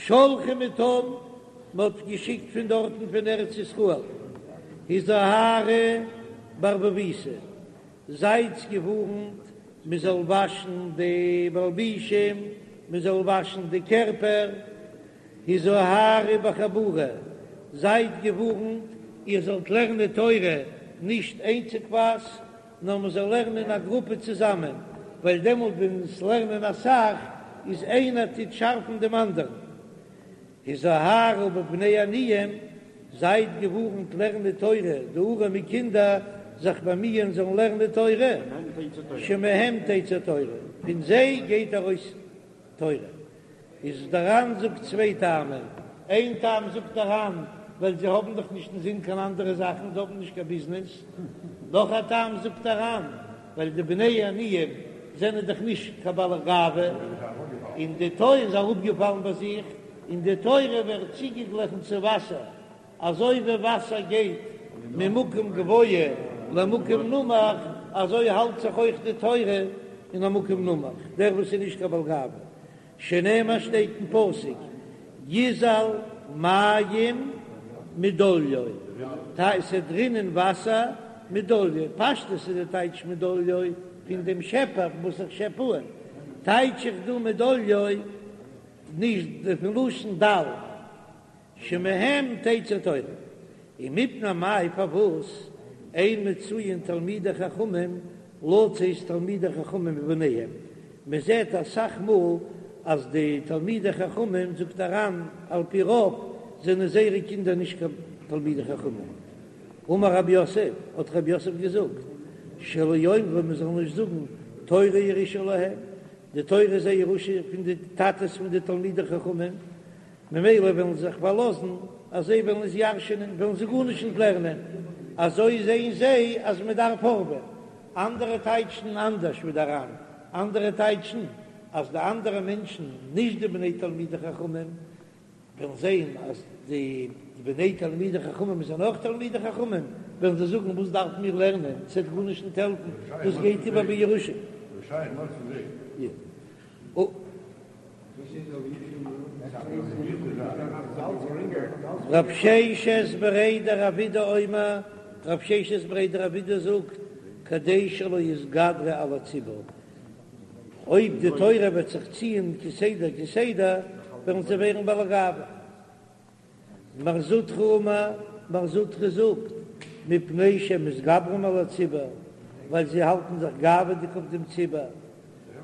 שלחו מתם, מען האט געשיקט פון דארטן פון ארץ ישראל, הזהרו בערבוביתא, זייטס געווארנט מען זאל וואשן די מלבישים, מען זאל וואשן די קערפער, הזהרו בחבורה, זייט געווארנט איר זאלט לערנען תורה נישט איינציגווייז, נאר מען זאל לערנען אין א גרופע צוזאמען, ווייל דעמאלט ווען עס לערנען אסאך איז איינער טוט שארפן דעם אנדערן. הזהרו בבני עניים, זייט געווארנט לערנען תורה, די ארעמע קינדער זיך באמיען זאלן לערנען תורה, שמהם תצא תורה, פון זיי גייט ארויס תורה. איז דער ר"ן זאגט צוויי טעמים, איין טעם זאגט דער ר"ן ווייל זיי האבן דאך נישט אינזין קיין אנדערע זאכן, זיי האבן נישט קיין ביזנעס, נאך א טעם זאגט דער ר"ן ווייל די בני עניים זענען דאך נישט קיין בעלי גאווה, און די תורה איז אראפגעפאלן ביי זיך, און די תורה ווערט צוגעגליכן צו וואסער, אזוי ווי וואסער גייט ממקום גבוה למקום נמוך, אזוי האלט זיך אויך די תורה אין א מקום נמוך, דער וואס איז נישט קיין בעל גאווה, שנאמר שטייט אין פסוק יזל מים מדליו, ס'וועט רינען וואסער מדליו, פשטות איז די טייטש מדליו פון דעם שעפער וואס איך שעפ אן, טייטש איך דא מדליו נישט פון לשון דל. שמהם תצא תורה, ומפני מאי פארוואס אין מצויין תלמידי חכמים לצאת תלמידי חכמים מבניהם, מען זעט אסאך מאל אז די תלמידי חכמים זאגט דער ר"ן על פי רוב זענען זייערע קינדער נישט קיין תלמידי חכמים, אמר רב יוסף, האט רב יוסף געזאגט, שלא יאמרו מען זאל נישט זאגן תורה ירושה להם, די תורה איז א ירושה פון די טאטעס פון די תלמידי חכמים, ממילא וועלן זיי זיך פארלאזן אז זיי וועלן עס ירש'ענען, וועלן זיי גארנישט נישט לערנען, אזוי זעען זיי אז מען דארף הארעווען. אנדערע טייטשן אנדערש ווי דער ר"ן, אנדערע טייטשן אז די אנדערע מענטשן, נישט די בני תלמידי חכמים, וועלן זען אז די בני תלמידי חכמים זענען אויך תלמידי חכמים, וועלן זיי זאגן וואס דארפן מיר לערנען, ס'וועט גארנישט נישט העלפן, דאס גייט איבער בירושה. רב ששת בריה דרב אידי אומר, רב ששת בריה דרב אידי זאגט, כדי שלא יתגדרו על הציבור, אויב די תורה וועט זיך ציען כסדר כסדר, וועלן זיי ווערן בעלי גאווה. מר זוטרא אמר, מר זוטרא זאגט, מפני שמתגברים על הציבור, ווייל זיי האלטן זיך גאווה'דיג אויף דעם ציבור.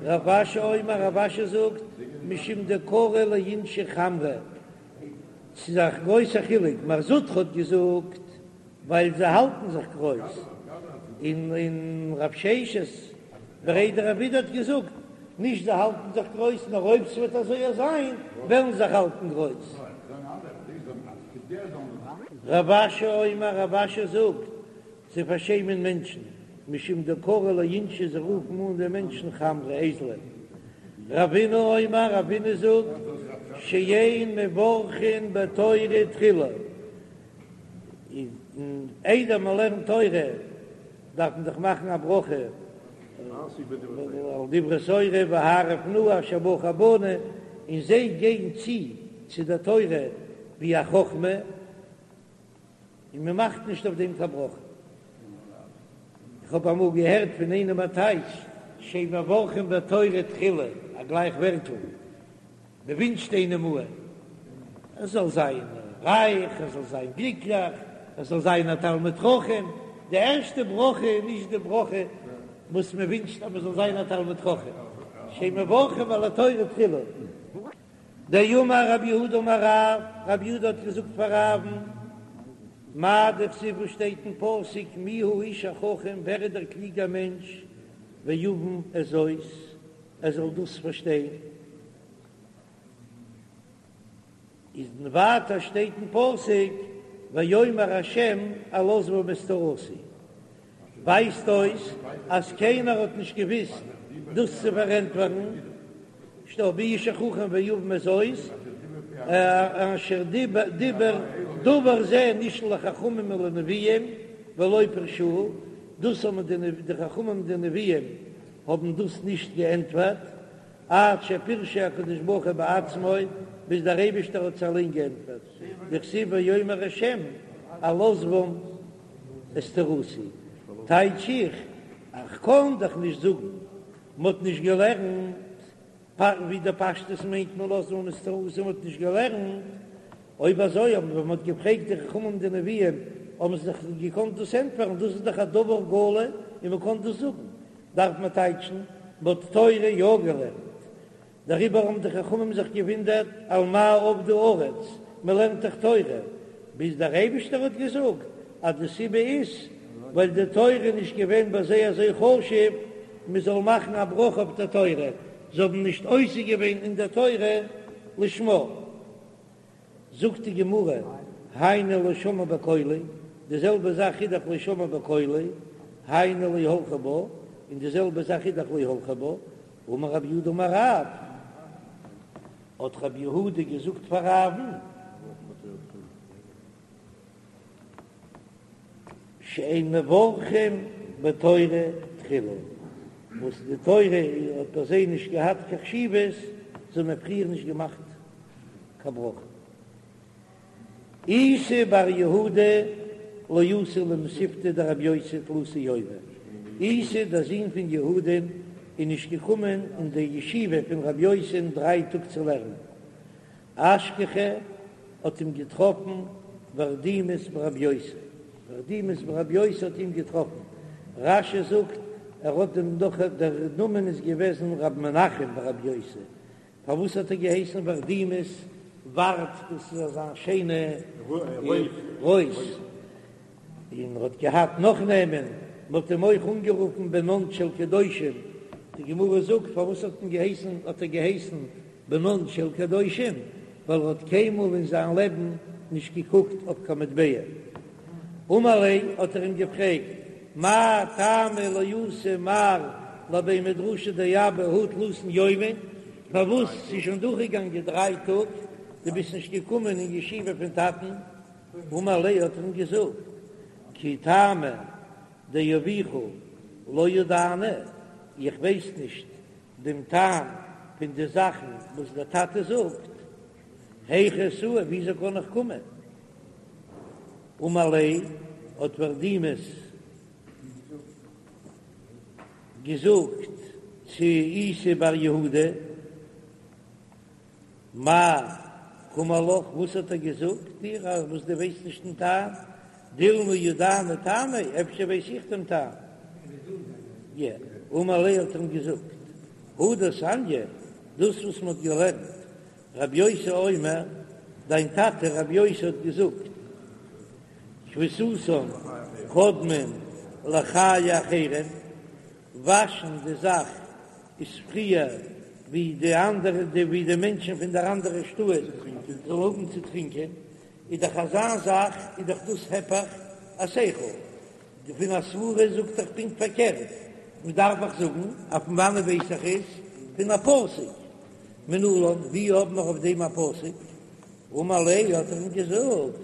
רב אשי אומר, רב אשי זאגט, משום דקרי לאינשי חמרי, ס'איז א גרויסע חילוק, מר זוטרא האט געזאגט, ווייל זיי האלטן זיך גרויס, און און רב ששת בריה דרב אידי האט געזאגט, נישט זיי האלטן זיך גרויס, נאר אויב ס'וועט אזוי זיין וועלן זיך האלטן גרויס. רב אשי אומר, רב אשי זאגט, זיי פארשעמען מענטשן, משום דקרי לאינשי זיי רופן אן די מענטשן חמרי אייזלען. רבינא אומר, רבינא זאגט, שאין מברכין בתורה תחילה. און איידער מען לערנט תורה דארף מען דאך מאכן א ברכה על דברי תורה והערב נא אשר בחר בנו, און זיי גייען צו צו דער תורה ווי א חכמה, און מען מאכט נישט אויף דעם קיין ברכה. איך האב אמאל געהערט פון איינעם א טייטש, שאין מברכין בתורה תחילה, א גלייך ווערטל. מען ווינטשט איינעם אן ער זאל זיין רייך, ער זאל זיין גליקליך, ער זאל זיין א תלמיד חכם, די ערשטע ברכה איז נישט די ברכה וואס מען ווינטשט אז מען זאל זיין א תלמיד חכם, שאין מברכים על התורה תחילה. דאמר רב יהודה אמר רב, רב יהודה האט געזאגט פאר רב'ן, מאי דכתיב וואס שטייט אין פסוק מי האיש החכם ווער איז דער קלוגער מענטש ויבן את זאת, ער זאל דאס פארשטיין, איז ווייטער שטייט אין פסוק ויאמר ה' אל עזבם את תורתי, ווייזט אויס אז קיינער האט נישט געוויסט דאס צו פארענטפערן, שטייט מי האיש החכם ויבן את זאת, אשר דיבר דבר זה נשאל לחכמים ולנביאים ולא פירשוהו, דאס האבן די חכמים און די נביאים האבן דאס נישט געענטפערט. עד שפירשו הקדוש ברוך הוא בעצמו, ביז דער אייבישטער האט זיי אליין געענטפערט, דכתיב ויאמר השם על עזבם את תורתי, טייטש איך, איך קען דאך נישט זאגן, מ'האט נישט געלערנט, ווי די פשטות מיינט מען על עזבם את תורתי, מ'האט נישט געלערנט, אויב אזוי האבן ווען מ'האט געפרעגט די חכמים די נביאים האבן זיי דאך געקאנט דאס ענטפערן, דאס איז דאך א דבר גלוי און מ'קען דאס זאגן, דארף מען טייטשן מ'האט תורה יא געלערנט, דעריבער האבן די חכמים זיך געוואונדערט על מה אבדה הארץ, מ'לערנט דאך תורה, ביז דער אייבישטער האט געזאגט אז די סיבה איז ווייל די תורה איז נישט געווען ביי זיי אזוי חשוב מ'זאל מאכן א ברכה אויף דער תורה, זיי האבן נישט עוסק געווען אין דער תורה לשמה. זאגט די גמרא, היינו לא שמעו בקולי, די זעלבע זאך איז דאך לא שמעו בקולי, היינו לא הלכו בה, און די זעלבע זאך איז דאך לא הלכו בה, אמר רב יהודה אמר רב, האט רב יהודה געזאגט פאר רב'ן, שאין מברכים בתורה תחילה, וואס די תורה האט ביי זיי נישט געהאט קיין חשיבות, זיי האבן פריער נישט געמאכט קיין ברכה. איסי בר יהודה לא אתא למתיבתא דרבי יוסי תלתא יומי, איסי דער זון פון יהודה'ן איז נישט געקומען אין די ישיבה פון רבי יוסי'ן דריי טאג צו לערנען, אשכחיה האט אים געטראפן ורדימס ברבי יוסי, ורדימס ברבי יוסי האט אים געטראפן, רש"י זאגט ער האט דעם נאך דער נאמען איז געוועזן ר' מנחם ברבי יוסי, פארוואס האט ער געהייסן ורדימס, ורד דאס איז אזא שיינע רויז, און ער האט געהאט נאך נעמען, מען האט אים אויך אנגערופן בנן של קדושים, די גמרא זאגט פארוואס האט מען געהייסן האט ער געהייסן בנן של קדושים, ווייל ער האט קיינמאל אין זיין לעבן נישט געקוקט אויף קיין מטבע. אמר ליה האט ער אים געפרעגט, מאי טעמא לא אתא מר לבי מדרשא דאבא הא תלתין יומין, פארוואס ס'איז שוין דורכגעגאנגען דריי טאג, דו ביסט נישט געקומען אין ישיבה פון טאטן? אמר ליה האט ער אים געזאגט, כי טעמא דאבוך לא ידענא, איך ווייס נישט דעם טעם פון די זאכן וואס דער טאטע זאגט, היכי אתאי, וויאזוי קען איך קומען? אמר ליה, האט ורדימס געזאגט צו איסי בר יהודה, מאי קאמר לך, וואס האט ער געזאגט דיר אז וואס דו ווייסט נישט דעם טעם? דילמא ידענא טעמיה, אפשר ווייס איך דעם טעם. י. אמר ליה האט ער אים געזאגט, הא דתניא, דאס וואס מען האט געלערנט, רבי יוסי אומר, דיין טאטע רבי יוסי האט געזאגט, כביסתן קודמין לחיי אחרים, וואשן די זאך איז פריער ווי די אנדערע די ווי די מענטשן פון דער אנדערע שטאט זאלן האבן צו טרינקען, איז דאך אזא זאך איז דאך דאס היפך השכל, די פון א סברה זאגט דאך פונקט פארקערט, מען דארף דאך זאגן אז פון וואנעט ווייס איך עס? פון א פסוק, מנלן ווי האבן מיר אויף דעם א פסוק? אמר ליה האט ער אים געזאגט,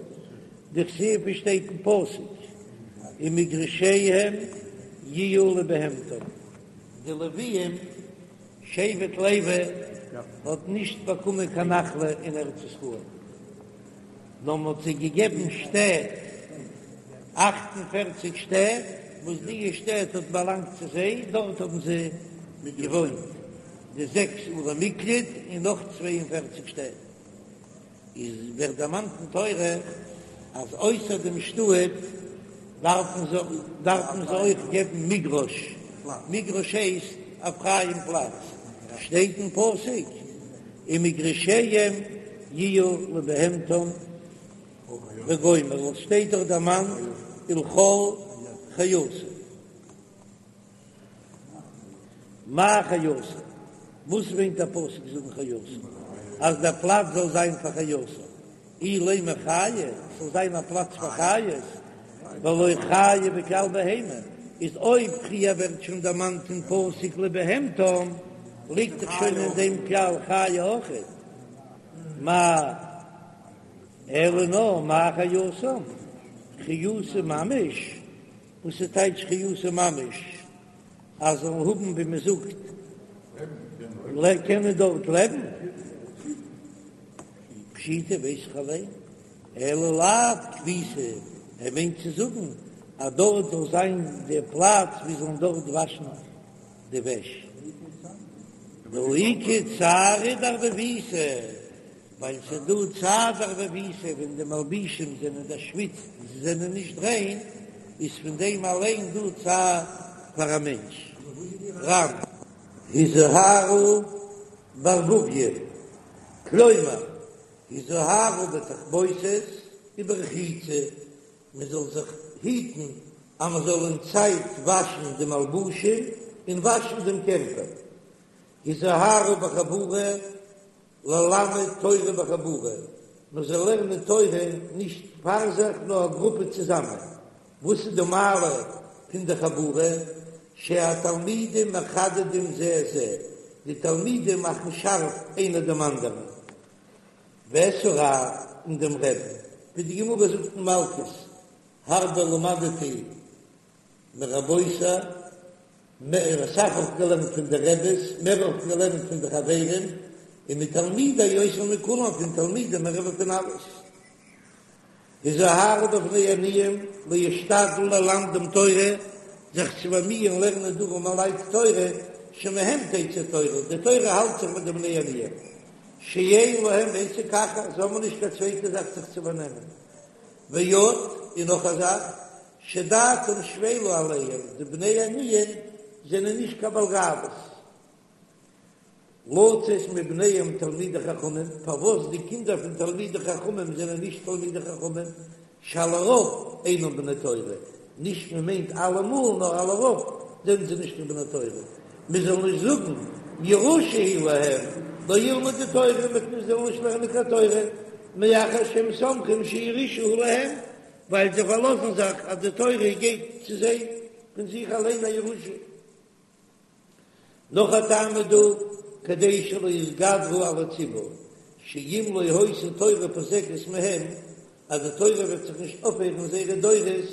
דכתיב ווי שטייט אין פסוק, ומגרשיהם יהיו לבהמתם, די לוויים, שבט לוי האט נישט באקומען קיין נחלה אין ארץ ישראל, נאר מען האט זיי געגעבן שטעט, אכט און פערציג שטעט, וואס די שטעט האט באלאנגט צו זיי, דארט האבן זיי געוואוינט, די זעקס ערי מקלט און נאך 42 שטעט. איז ווערט דערמאנט אין תורה אז אויסער דעם שטאט דארפן זיי דארפן זיי אויך געבן מגרש, מגרש הייסט א פרייען פלאץ, שטייט אין פסוק ומגרשיהם יהיו לבהמתם וגומר, עס שטייט דאך דערמאנט ולכל חייתם. מאי חייתם? וואס מיינט דער פסוק זאגן חייתם? אז דער פלאץ זאל זיין פאר חייתם, אילימא חיה, ס'זאל זיין א פלאץ פאר חיות, והלא חיה בכלל בהמה, איז אויב פריער ווערט שוין דערמאנט אין פסוק לבהמתם, ליגט דאך שוין אין דעם כלל חיה אויכעט. מאי אלא נאר מאי חייתם? חיותא ממש? וואס איז טייטש חיותא ממש? אז זאלן האבן ווי מען זאגט. קענען דארט לעבן? פשיטא ווייס איך אליין, אלא לאו כביסה, ער מיינט צו זאגן אז דארט זאל זיין די פלאץ ווי זאלן דארט וואשן די וועש. דהא איכא צערא דערבוביתא, ווייל ס'איז דא צער דערבוביתא ווען די מלבישים זענען דערשוויצט און זיי זענען נישט ריין, איז פון דעם אליין דא צער פאר א מענטש. ר"ן. הזהרו בערבוביא, כלומר, הזהרו בתכבוסת וברחיצה, מען זאל זיך היטן אז מען זאל אין צייט וואשן די מלבושים און וואשן דעם קערפער. הזהרו בחבורה, ללמד תורה בחבורה, מען זאל לערנען תורה נישט פאר זיך נאר א גרופע צוזאמען, וואס איז די מעלה פון די חבורה? שהתלמידים מחדדים זה את זה, די תלמידים מאכן שארף איינער דעם אנדערן, ואת הרב און דעם רבי'ן, ווי די גמרא זאגט אין מלקות, הרבה למדתי מרבותי, מער אסאך האב איך געלערנט פון די רעבעס, מער האב איך געלערנט פון די חברים, און מתלמידי יותר מכולם, פון תלמידים מער ווי פון אלעס. הזהרו בבני עניים להשתדל ללמדם תורה, זיך צו באמיען לערנען די ארעמעלייט תורה, שמהם תצא תורה, די תורה האלט זיך מיט די בני עניים, שאין להם עסק אחר, זיי האבן נישט קיין צווייטע זאך זיך צו באנעמען. ועוד, און נאך א זאך, שדעתם שפלה עליהם, די בני עניים זענען נישט קיין בעל גאוות. לצאת מבניהם תלמידי חכמים, פארוואס די קינדער פון תלמידי חכמים זענען נישט תלמידי חכמים, שעל הרוב אינם בני תורה, נישט מען מיינט אלעמאל נאר על הרוב זענען זיי נישט קיין בני תורה, מען זאל נישט זאגן ירושה היא להם, לא ילמדו תורה, מען זאל נישט לערנען קיין תורה, מאחר שהם סומכים שירושה היא להם, ווייל זיי פארלאזן זיך אז די תורה גייט צו זיי פון זיך אליין א ירושה. נאך א טעם איז דא, כדי שלא יתגדרו על הציבור, שאם לא היתה תורה פוסקת מהם, אז די תורה וועט זיך נישט אויפהערן זייערע דורות,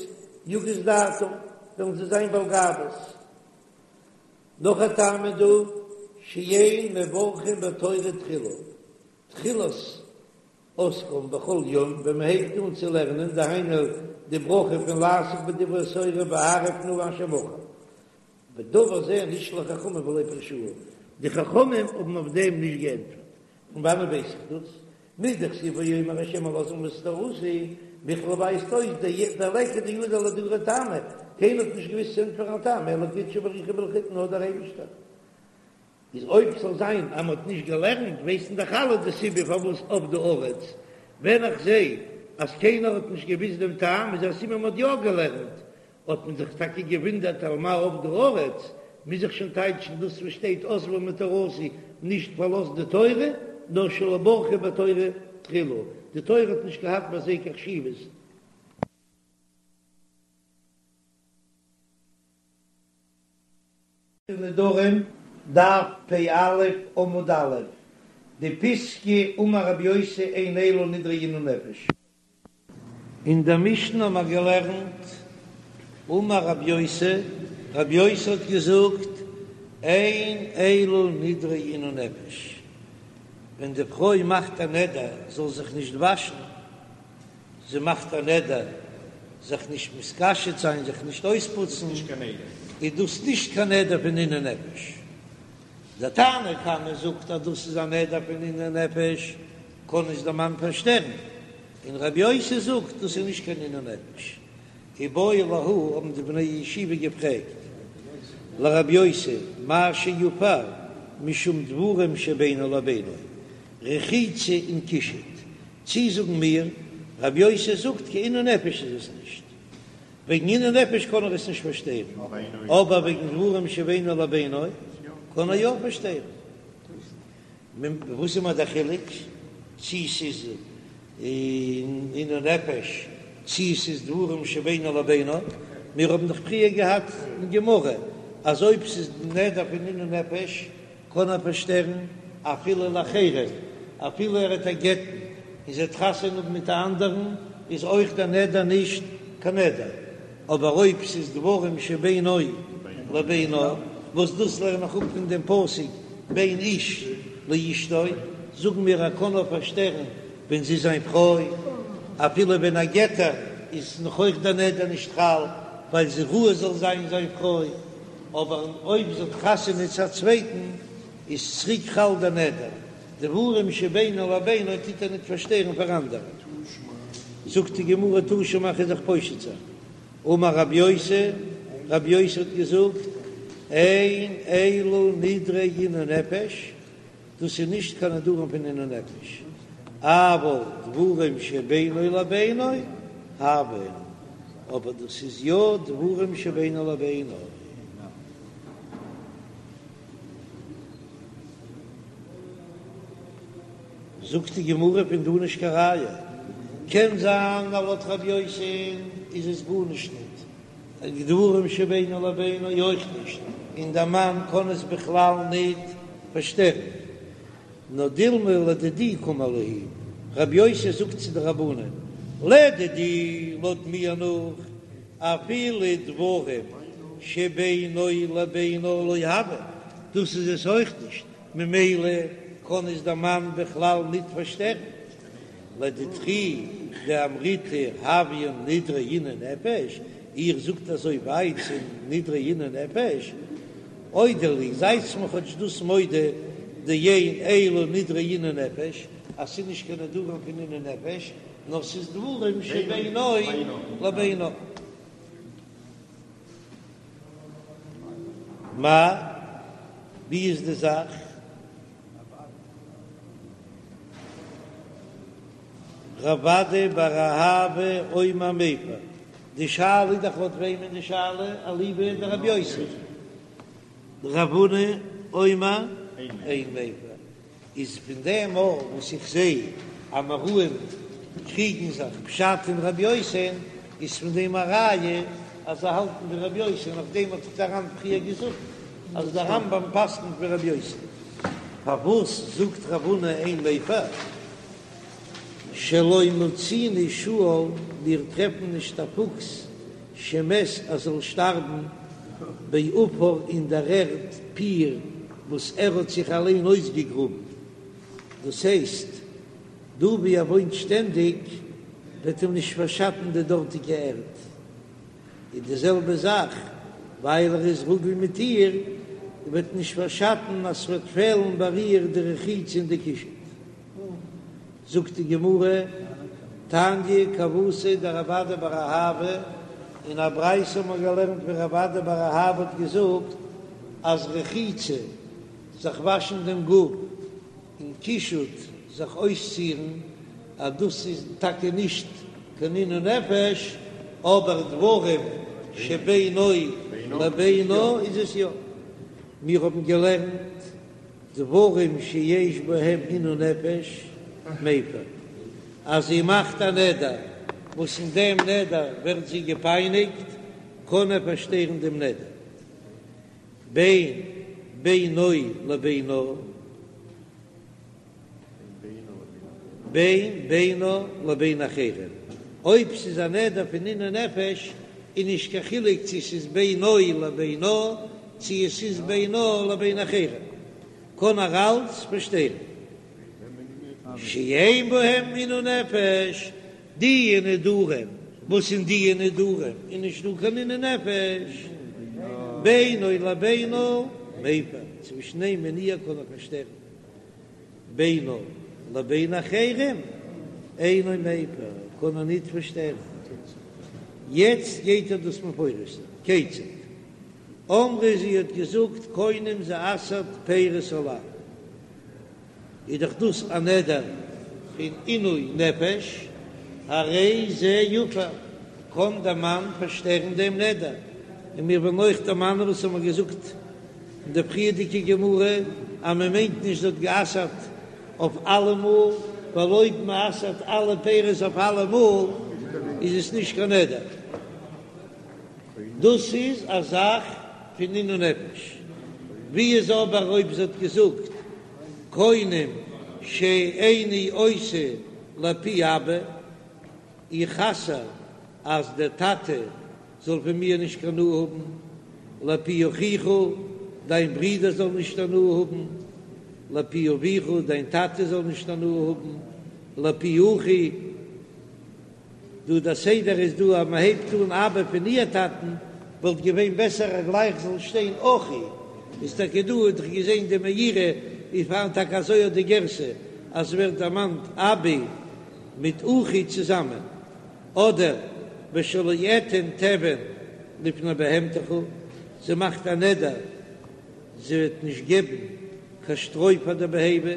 יגיס דעתם, וועלן זיי זיין בעל גאוות. נאך א טעם איז דא, שאין מברכים בתורה תחילה, תחילת עסקם בכל יום, ווען מען הייבט אן צו לערנען, דהיינו די ברכה פון לעסוק בדברי תורה והערב נא אשר בחר. ודבר זה נשאלו חכמים ולא פירשוהו, די חכמים האבן אויף דעם נישט געענטפערט, פון וואנען ווייס איך דאס? מדכתיב ויאמר ה' אל עזבי את תורתי, מכלל ווייזט אויס דליכא דידע לאהדורי טעמא, קיינער האט נישט געוויסט צו ענטפערן א טעם אלא קודשא בריך הוא בלחוד נאר דער אייבישטער. איז אויב ס'זאל זיין אז מ'האט נישט געלערנט ווייסן דאך אלע די סיבה פארוואס אבדה הארץ, ווען איך זע אז קיינער האט נישט געוויסט דעם טעם איז א סימן מ'האט יא געלערנט, האט מען זיך טאקע געוואונדערט על מה אבדה הארץ, מוז איך שוין טייטשן דאס וואס שטייט עזבה מתורתי, נישט פארלאזט די תורה, נאר שלא ברכו בתורה תחילה, די תורה האט נישט געהאט ביי זיי קיין חשיבות. נדרים, דף פ"א עמוד א', די פיסקא אמר רבי יוסי אין אלו נדרי עינוי נפש. אין דער משנה האבן מיר געלערנט, אמר רבי יוסי, רבי יוסי האט געזאגט, אין אלו נדרי עינוי נפש, ווען די פרוי מאכט א נדר זאל זיך נישט וואשן, זי מאכט א נדר זיך נישט מתקשט זיין, זיך נישט אויספוצן, איז דאס נישט קיין נדר פון עינוי נפש. דער תנא קמא זאגט אז דאס איז א נדר פון עינוי נפש, קען עס דער מאן פארשטערן, און רבי יוסי זאגט דאס איז נישט קיין עינוי נפש. איבעיא להו האבן די בני ישיבה געפרעגט לרבי יוסי מהו שיפר משום דברים שבינו לבינה, רחיצה און קישוט, צי זאגן מיר רבי יוסי זאגט קיין עינוי נפש איז עס נישט, וועגן עינוי נפש קען ער עס נישט פארשטערן, אבער וועגן דברים שבינו לבינה קען ער יא פארשטערן. וואס איז מיר דער חילוק צי ס'איז עינוי נפש צי ס'איז דברים שבינו לבינה? מיר האבן דאך פריער געהאט אין גמרא אז אויב ס'איז נדר פון עינוי נפש קען ער פארשטערן אפילו לאחרים, אפילו ער וועט איר גט'ן און זי וועט חתונה האבן מיט א אנדערן איז אויך דער נדר נישט קיין נדר, אבער אויב ס'איז דברים שבינו לבינה, וואס דאס לערן איך אפ פון דעם פסוק. בין איש לאשתו, זאגן מיר ער קען נאר פארשטערן ווען זי איז זיין פרוי, אפילו ווען ער גט איר איז נאך אויך דער נדר נישט חל, ווייל זי ראוי זאל זיין זיין פרוי, אבער אויב זי האט חתונה צו א צווייטן איז צוריק חל דער נדר, דברים שבינו לבינה טוט ער ניט פארשטערן פאר אנדערע. זאגט די גמרא תא שמע כ'וועל דיך פושט זיין, אמר רבי יוסי, רבי יוסי האט געזאגט, אין אלו נדרי עינוי נפש, דאס איז נישט קיין נדרים פון עינוי נפש, אבל דברים שבינו לבינה הויין, אבער דאס איז יא דברים שבינו לבינה. זאגט די גמרא פון דא נישט קיין ראיה, קען זיין אז לויט רבי יוסי איז עס גארנישט ניט, דברים שבינו לבינה אויך נישט, און דער מאן קען עס בכלל ניט פארשטערן, נאר דילמא לדידי קאמר להו, רבי יוסי זאגט צו די רבנן, לדידי לויט מיר נאך, אפילו דברים שבינו לבינה לא הויין, דאס איז עס אויך נישט, ממילא קען עס דער מאן בכלל ניט פארשטערן. לדידכו דאמריתו הויין נדרי עינוי נפש, איר זאגט אזוי ווייט ס'איז נדרי עינוי נפש, אודו לי, זייטס מיר כאטש דאס מודה דאין אלו נדרי עינוי נפש, אז ס'איז נישט קיין נדרים פון עינוי נפש, נאר ס'איז דברים שבינו לבינה. מאי, ווי איז די זאך? רב אדא בר אהבה אומר מפר, די שאלה איז דאך לויט וועמען די שאלה? אליבא דרבי יוסי, רב הונא אומר אין מפר, איז פון דעם אויך וואס איך זע אז אמוראים קריגן זיך פשט אין רבי יוסי'ן, איז פון דעם א ראיה אז זיי האלטן ווי רבי יוסי, און אויף דעם האט דאך דער ר"ן פריער געזאגט אז דער רמב"ם פסק'נט ווי רבי יוסי. פארוואס זאגט רב הונא אין מפר שלא מצינו שועל, מיר טרעפן נישט א פוקס שמת אז זאל שטארבן בעפר אין דער ערד פיר וואס ער האט זיך אליין אויסגעגראבן, דאס הייסט דא ווי ער וואוינט שטענדיג וועט אים נישט פארשאטן די דארטיגע ערד, און די זעלבע זאך ווייל ער איז רגיל מיט איר וועט נישט פארשאטן אז ס'וועט פעלן ביי איר די רחיצה און די קישוט. זאגט די גמרא, תניא כוותיה דרב אדא בר אהבה, אין א ברייתא האט מען געלערנט ווי רב אדא בר אהבה האט געזאגט אז רחיצה, זיך וואשן דעם גוף, און קישוט, זיך אויסצירן, אז דאס איז טאקע נישט קיין עינוי נפש, אבער דברים שבינו לבינה איז עס יא. מיר האבן געלערנט דברים שיש בהם עינוי נפש מפר, אז זי מאכט א נדר וואס אין דעם נדר ווערט זי געפייניגט, קען ער פארשטערן דעם נדר בין בינו לבינה, בין בינה לבין אחרים, אויב ס'איז א נדר פון עינוי נפש איז נישט קיין חילוק צו ס'איז בינו לבינה צו עס איז בינה לבין אחרים, קען ער אלץ פארשטערן. שאין בהם עינוי נפש, די נדרים וואס אין די נדרים איז נישט דא קיין עינוי נפש, בינו לבינה מפר, צווישן אים און איר קען ער פארשטערן. בינה לבין אחרים אינו מפר, קען ער ניט פארשטערן. יעצט גייט ער דאס מפרש זיין. כיצד? אמרה זי האט געזאגט קונם זי אסר'ט פירות עלי. איז דאך דאס א נדר פון עינוי נפש, הרי זה יפר, קען דער מאן פארשטערן דעם נדר. און מיר וועלן אויך דערמאנען וואס האמיר געזאגט אין די פריערדיגע גמרא אז מען מיינט נישט זי האט גע'אסר'ט אויף אלעמאל, ווייל אויב מען אסר'ט אלע פירות אויף אלעמאל איז עס נישט קיין נדר. דאס איז א זאך פון עינוי נפש. ווי איז אבער אויב זי האט געזאגט קונם שאיני עושה לפי אבא, איך אסר אז דער טאטע זאל פון מיר נישט קיין הנאה האבן, לפי אחיך, דיין ברודער זאל נישט הנאה האבן. לפי אביך, דיין טאטע זאל נישט הנאה האבן, לפי אחי, דא דער סדר איז דא אז מען הייבט אן אבא פון איר טאטן, וואלט געווען בעסער אז גלייך זאל שטיין אחי, איז טאקע דא האט איך געזען די מאירי איז פארהאן טאקע אזוי אט די גירסא אז ס'ווערט דערמאנט אבי מיט אחי צוזאמען, אדער ושלא אתן תבן לפני בהמתך, זי מאכט א נדר זי וועט נישט געבן קיין שטרוי פאר די בהמה,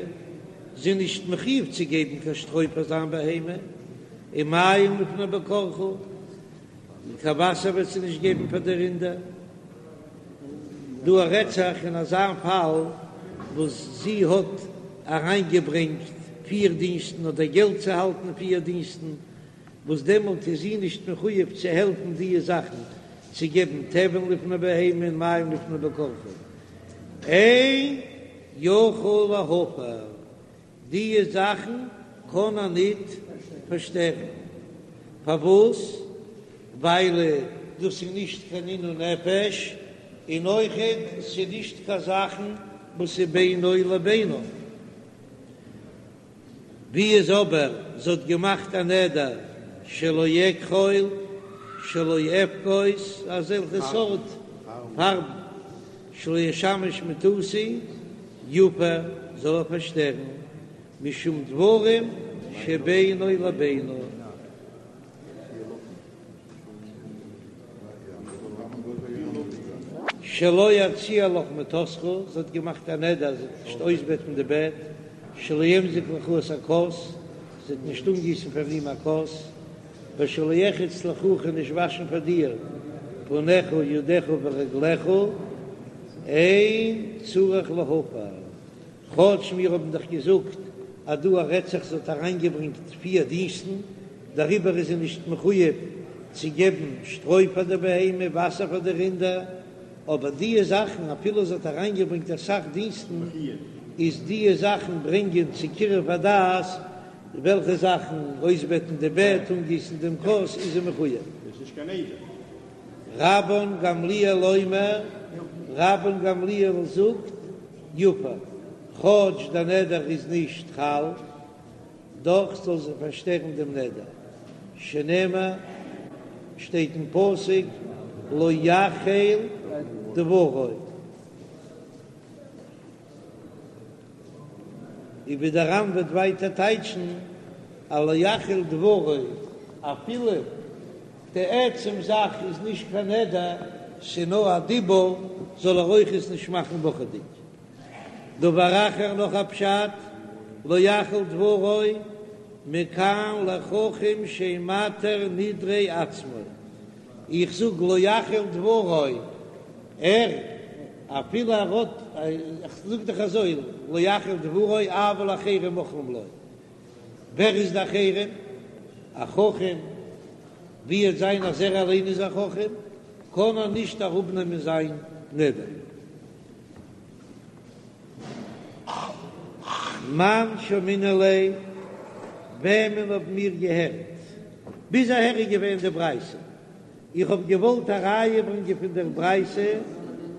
זי איז נישט מחויב צו געבן קיין שטרוי פאר זיין בהמה, ומים לפני בקרך, און קיין וואסער וועט זי נישט געבן פאר די רינדער. דא רעדט זיך אין אזא פאל וואס זי האט אריינגעברענגט פיר דינסטן אדער געלט צו האלטן פיר דינסטן, וואס דעמאלט איז זי נישט מחויב צו העלפן דיע זאכן, צו געבן תבן לפני בהמה און מים לפני בקרך, אין יכול להפר, דיע זאכן קען ער ניט פארשטערן, פארוואס? ווייל דאס איז נישט קיין עינוי נפש, און אויכעט ס'איז נישט קיין זאכן וואס איז בינו לבינה. ווי איז אבער זי האט געמאכט א נדר שלא אכחול שלא אפקוס אזעלכע סארט פארבן שלא אשמש מטתי יפר זאל ער פארשטערן משום דברים שבינו לבינה. שלא אציע לך מטתך, זי האט געמאכט א נדר זי וועט נישט אויסבעטן די בעט, שלא אמזוג לך את הכוס, זי וועט נישט אנגיסן פאר אים א כוס, ושלא ארחץ לך כ'וועל נישט וואשן פאר דיר פניך ידיך ורגליך, אין צריך להפר. כאטש מיר האבן דאך געזאגט אז דא רעדט זיך זי האט אריינגעברענגט פיר דינסטן, דעריבער איז זי נישט מחויב צו געבן שטרוי פאר די בהמה, וואסער פאר די רינדער, אבער דיע זאכן אפילו זי האט אריינגעברענגט אסאך דינסטן, איז דיע זאכן ברענגען צו קירוב הדעת, וועלכע זאכן, אויסבעטן די בעט, אנגיסן דעם כוס, איז זי מחויב. רבן גמליאל אומר, רבן גמליאל זאגט, יפר, כאטש דער נדר איז נישט חל, דאך זאל זי פארשטערן דעם נדר, שנאמר, שטייט אין פסוק, לא יחל דברו. און ווי דער ר"ן וועט ווייטער טייטשן אז לא יחל דברו, אפילו די עצם זאך איז נישט קיין נדר, ס'נאר א דיבור, זאל ער אויך עס נישט מאכן וואכעדיג. דבר אחר נאך א פשט, לא יחל דברו, מכאן לחכם שאין מתיר נדרי עצמו, איך זאג לא יחל דברו, ער, אפילו ער האט, איך זאג דאך אזוי, לא יחל דברו אבל אחרים מוחלים לו, ווער איז די אחרים? א חכם, ווי וועט זיין אז ער אליין איז א חכם, קען ער נישט אראפנעמען זיין נדר. מאן שמעינן ליה, וועמען האבן מיר געהערט? ביז אהער איז געווען די ברייתא. איך האב געוואלט א ראיה ברענגען פון דער ברייתא,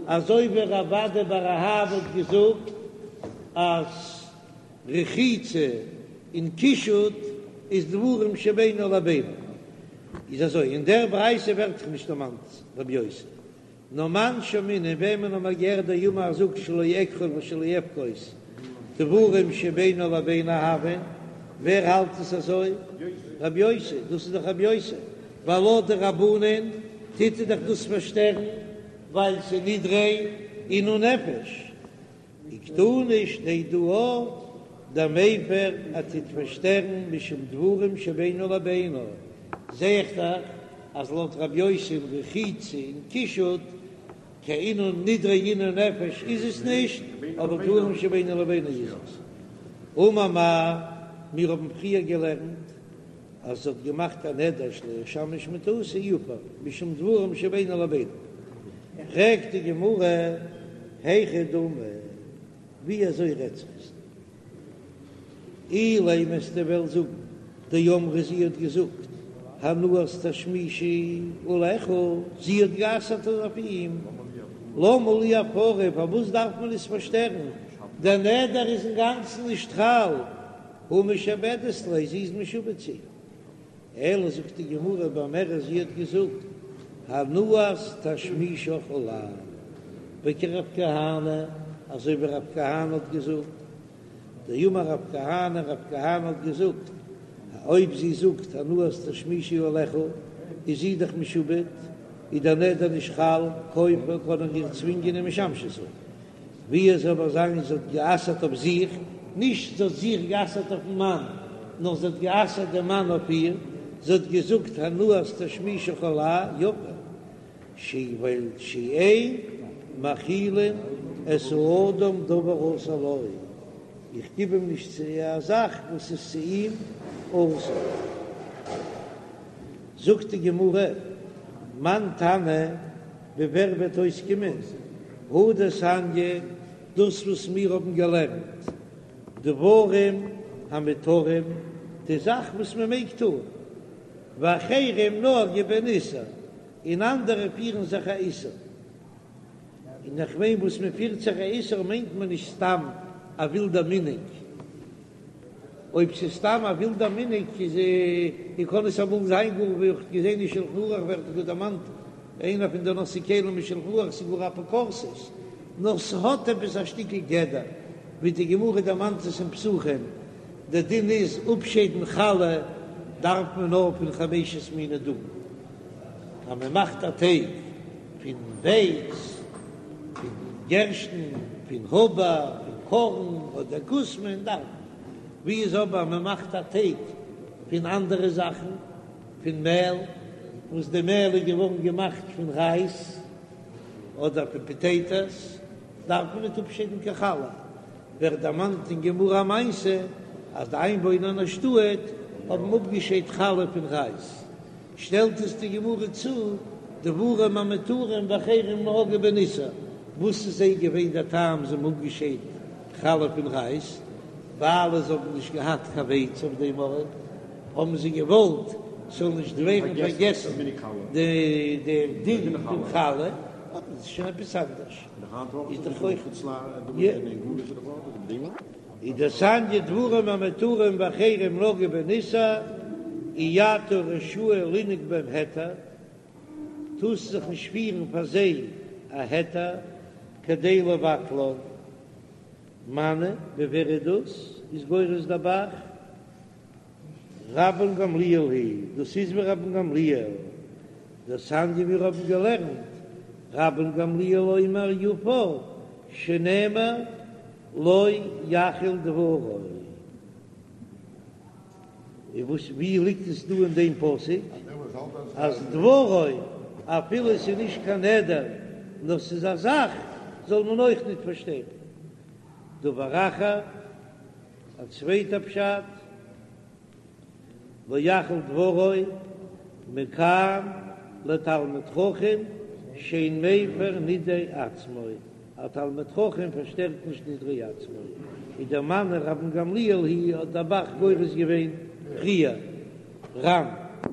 אזוי ווי רב אדא בר אהבה האט געזאגט אז רחיצה און קישוט איז דברים שבינו לבינה. איז אזוי, אין דער ברייתא ווערט דאך נישט דערמאנט רבי יוסי. נאר מאן שמעינן, וועמען האבן מיר געהערט דאמר ער זאגט שלא אכחול ושלא אפקוס דברים שבינו לבינה הויין, ווער האלט עס אזוי? רבי יוסי, דאס איז דאך רבי יוסי, ווייל לויט די רבנן טוט ער דאך דאס פארשטערן ווייל ס'איז נדרי עינוי נפש. וקתני שטייט דא אויך דמיפר ער טוט פארשטערן משום דברים שבינו לבינה, זע איך דאך אז לויט רב יוסי אין רחיצה און קישוט קיין עינוי נדרי עינוי נפש איז עס נישט, אבער דברים שבינו לבינה איז עס. אמר מר, מיר האבן פריער געלערנט אז זי האט געמאכט א נדר שלא אשמש מטתי יפר משום דברים שבינו לבינה, פרעגט די גמרא היכי דמי, ווי אזוי רעדט זיך עס דא? אילימא וועסטו וועלן זאגן דאמרה זי האט געזאגט הנאת תשמישי עליך, זי האט גע'אסר'ט אויף אים, למה לי הפרה, פארוואס דארף מען עס פארשטערן? דער נדר איז אינגאנצן נישט חל, הא משעבדת ליה, זי איז משועבד צו אים. אלא זאגט די גמרא באומרת זי האט געזאגט הנאת תשמישך עלי, וכרב כהנא, אזוי ווי רב כהנא האט געזאגט, דאמר רב כהנא, רב כהנא האט געזאגט, אויב זי זאגט הנאת תשמישי עליך, איז זי דאך משועבד, איז דער נדר נישט חל, כופה קען ער איר צווינגען ומשמשתו. ווי עס זאל אבער זיין זי האט גע'אסר'ט אויף זיך, נישט זי האט זיך גע'אסר'ט אויפן מאן, נאר זי האט גע'אסר'ט דעם מאן אויף איר, זי האט געזאגט הנאת תשמישך עלי יפר, ש ווייל שאין מאכילין את האדם דבר האסור לו, איך גיב אים נישט צו א זאך וואס איז צו אים אסור. זאגט די גמרא, מאן תנא, ווי ווער וועט אויסקומען, הא דתניא, דאס וואס מיר האבן געלערנט, דברים המותרים, די זאך וואס מען מעג טון, ואחרים נהגו בהן איסור, און אנדערע פירן זיך א איסור. און איך מיין וואס מען פירט זיך א איסור מיינט מען נישט סתם א ווילדע מנהג. אויב ס'איז סתם א ווילדע מנהג איז און קען עס אמאל זיין גאר ווי איך האב געזען אין שלחן ערוך ווערט גאר דערמאנט איינער פון די נושאי כלים אין שלחן ערוך ס'איז גאר אפיקורסות נאר ס'האט עפעס א שטיקל גדר ווי די גמרא דערמאנט עס אין פסחים די דין איז אפשיידן חלה דארף מען נאר פון חמשת מיני דגן אז מען מאכט א טייג פון ווייץ. פון גערשטן, פון האבער, פון קארן אדער כוסמין דארף מען. ווי איז אבער מען מאכט א טייג פון אנדערע זאכן, פון מעל, וואס די מעל איז געווארן געמאכט פון רייז אדער פון פאטעיטאס, דארף מען ניט אפשיידן קיין חלה. ווערט דערמאנט אין גמרא א מעשה אז די איינוואוינער אין א שטאט האבן אפגעשיידט חלה פון רייז. שטעלט עס די גמרא צו, דברים המותרים ואחרים נהגו בהן איסור, וואס איז זיי געווען דער טעם זיי האבן אפגעשיידט חלה פון רייז, ווייל זיי האבן נישט געהאט קיין ווייץ אויף דעם ארט, האבן זיי געוואלט ס'זאל נישט ווערן פארגעסן די דין פון חלה, אבער דאס איז שוין עפעס אנדערש, איז דאך אויך. איז דתניא דברים המותרים ואחרים נהגו בהן איסור, אי אתה רשאי לנהוג בהם היתר, טארסט זיך נישט פירן פאר זיי א היתר כדי לבטלן. מני, ווי ווער איז דאס? איז גורס דער ב"ח רבן גמליאל היא, דאס איז ווי רבן גמליאל, דתניא מיר האבן געלערנט, רבן גמליאל אומר יפר שנאמר לא יחל דברו. און וואס ווי ליגט עס דא אין דעם פסוק אז דברו אפילו עס איז נישט קיין נדר נאר ס'איז א זאך זאל מען אויך ניט פארשטערן. דבר אחר, א צווייטע פשט. לא יחל דברו מכאן לתלמיד חכם שאין מפר נדרי עצמו, א תלמיד חכם פארשטערט נישט נדרי עצמו, איז דער מני רבן גמליאל היא האט דער ב"ח גורס געווען פריער ר"ן.